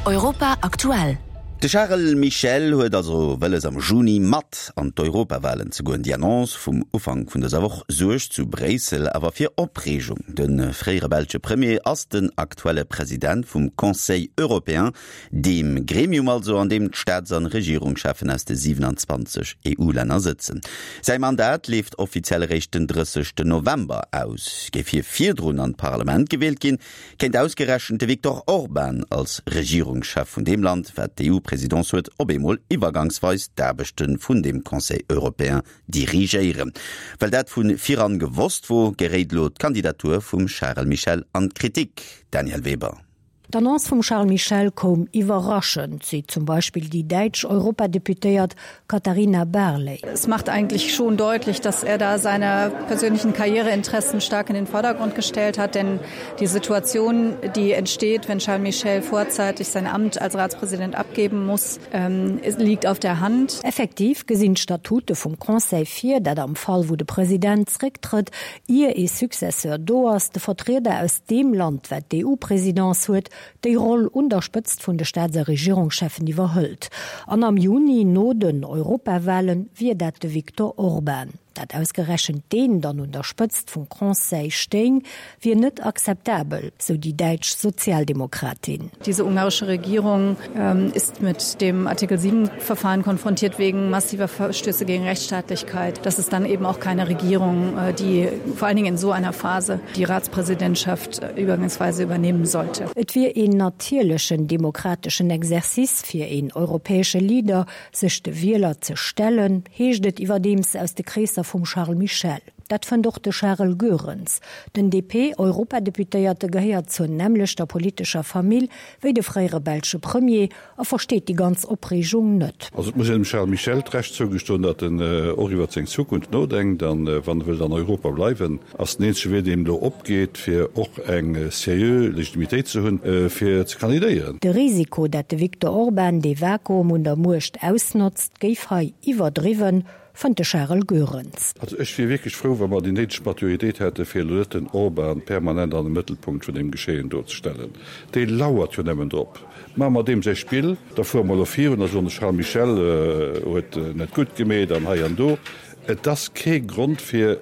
Europa aktuell. De Charles Michel huet also wëlles am Juni mat an d'Europawalen ze goen. Déi Annonce vum Ufank vun dëser Woch suergt zu Bréissel awer fir Opreegung. De fréiere belsche Premier ass den aktuelle President vum Conseil européen, deem Gremium also, an deem d'Staats an Regierungscheffen aus de 27 EU-Länner sëtzen. Säi Mandat leeft offiziell eréischt den 30 November aus. Géif hie virdrun an d'Parlament gewielt ginn, Kéint ausgerechent de Viktor Orban als Regierungschef vun deem Land, wat d'EU-Presidence huet, op eemol iwwergangsweis d'Aarbechte vun deem Conseil européen dirigéieren? Well dat vu viran gewosst wor, geréit elo d'Kandidatur vum Charel Michel an d'Kritik. Danièle Weber. D'Annonce vum Charles Michel koum iwwerraschend, seet zum Beispill déi däitsch Europadeputéiert Katharina Barley. Es macht eigentlich schon deutlich, dass er da seine persönlichen Karriereinteressen stark in den Vordergrund gestellt hat, denn die Situation, die entsteht, wenn Charles Michel vorzeitig sein Amt als Ratspräsident abgeben muss, ähm, liegt auf der Hand. Effektiv gesinn d'Statute vum Conseil vir, dat am Fall wou de President zrécktrëtt, ier ee Successeur do ass, de Vertrieder aus deem Land, wat d'EU-Presidence huet, déi Roll un der Spëtzt vun de Staats a Regierungscheffen iwwerhëlt. An am Juni, no den Europawahlen, wier dat de Viktor Orban. Dat ausgerechent deen dann un der Spëtzt vum Conseil stéing, wier net akzeptabel, sou déi däitsch Sozialdemokratin. Diese ungarische Regierung ist mit dem Artikel 7 Verfahren konfrontiert wegen massiver Verstöße gegen Rechtsstaatlichkeit. Das ist dann eben auch keine Regierung, die vor allen Dingen in so einer Phase die Ratspräsidentschaft übergangsweise übernehmen sollte. Et wier een natierlechen demokrateschen Exercice fir een europäesche Leader, sech de Wieler ze stellen, heescht et iwwerdeems aus de Kreesser vum Charles Michel. Dat fënnt och de Charel Goerens. Den DP-Europadeputéierte gehéiert zur nämmlechter politescher Famill wéi de fréiere belsche Premier a versteet déi ganz Opreegung net. Also et muss een dem Charles Michel d'Recht zougestoen, datt en och iwwert seng Zukunft nodenkt an wann e wëllt an Europa bleiwen, ass den eenzege Wee deen elo opgeet, fir och eng seriö Legitimitéit ze hunn, fir ze kandidéieren. De Risiko, dat de Viktor Orban dee Vakuum un der Muecht ausnotzt, géif hei iwwerdriwwen, fënnt de Charel Goerens. Also ech wier wierklech frou, wa mer déi néideg Maturitéit hätte fir elo net den Orban permanent an de Mëttelpunkt vun deem Geschehen do ze stellen. Dee lauert jo nëmmen drop. Maache mer deem säi Spill, da fuere mer elo virun a soen, de Charles Michel huet net gutt gemeet an hei an do. Et ass kee Grond fir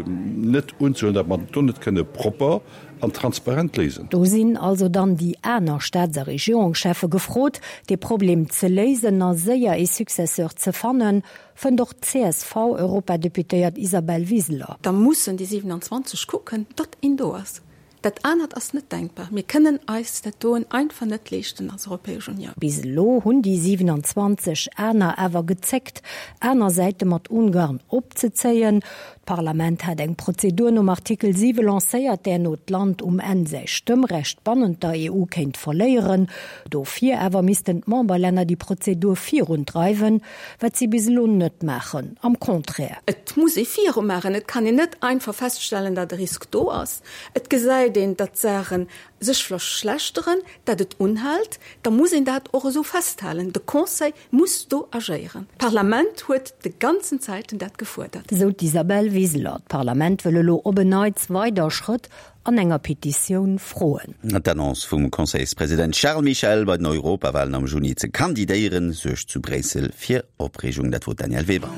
net unzehuelen, datt mer do net kënne propper an transparent léisen. Do sinn also dann déi aner Staats a Regierungscheffe gefrot, dee Problem ze léisen a séier ee Successeur ze fannen, fënnt och d'CSV-Europadeputéiert Isabel Wiseler. Da mussen déi 27 kucken, datt een do ass. Dat anert ass net denkbar. Mir kënnen eis dat doen einfach net leeschten als Europäesch Unioun. Bis elo hunn déi 27 aner awer gezéckt, aner Säite mat Ungarn opzezéien. D'Parlament hat eng Prozedur nom Artikel 7 lancéiert, där no d'Land um Enn säi Stëmmrecht bannent der EU kéint verléieren. Dofir awer missten d'Memberlänner déi Prozedur virundreiwen, wat si bis elo net maachen. Am Contraire. Et muss ee virumaachen. Et kann een net einfach feststellen, datt e Risk do ass. Et gesäit een, datt d'Saache sech verschlechteren, datt et unhält. Da muss een dat och esou festhalen. De Conseil muss do agéieren. D'Parlament huet de ganzen Zäiten dat gefuerdert. Esou d'Isabel Wiseler. D'Parlament wëll elo op en Neits weider Schrëtt an enger Petitioun froen. D'Annonce vum Conseilspresident Charles Michel, bei den Europawalen am Juni ze kandidéieren, suergt zu Bréissel fir Opreegung. Dat wor d'Danièle Weber.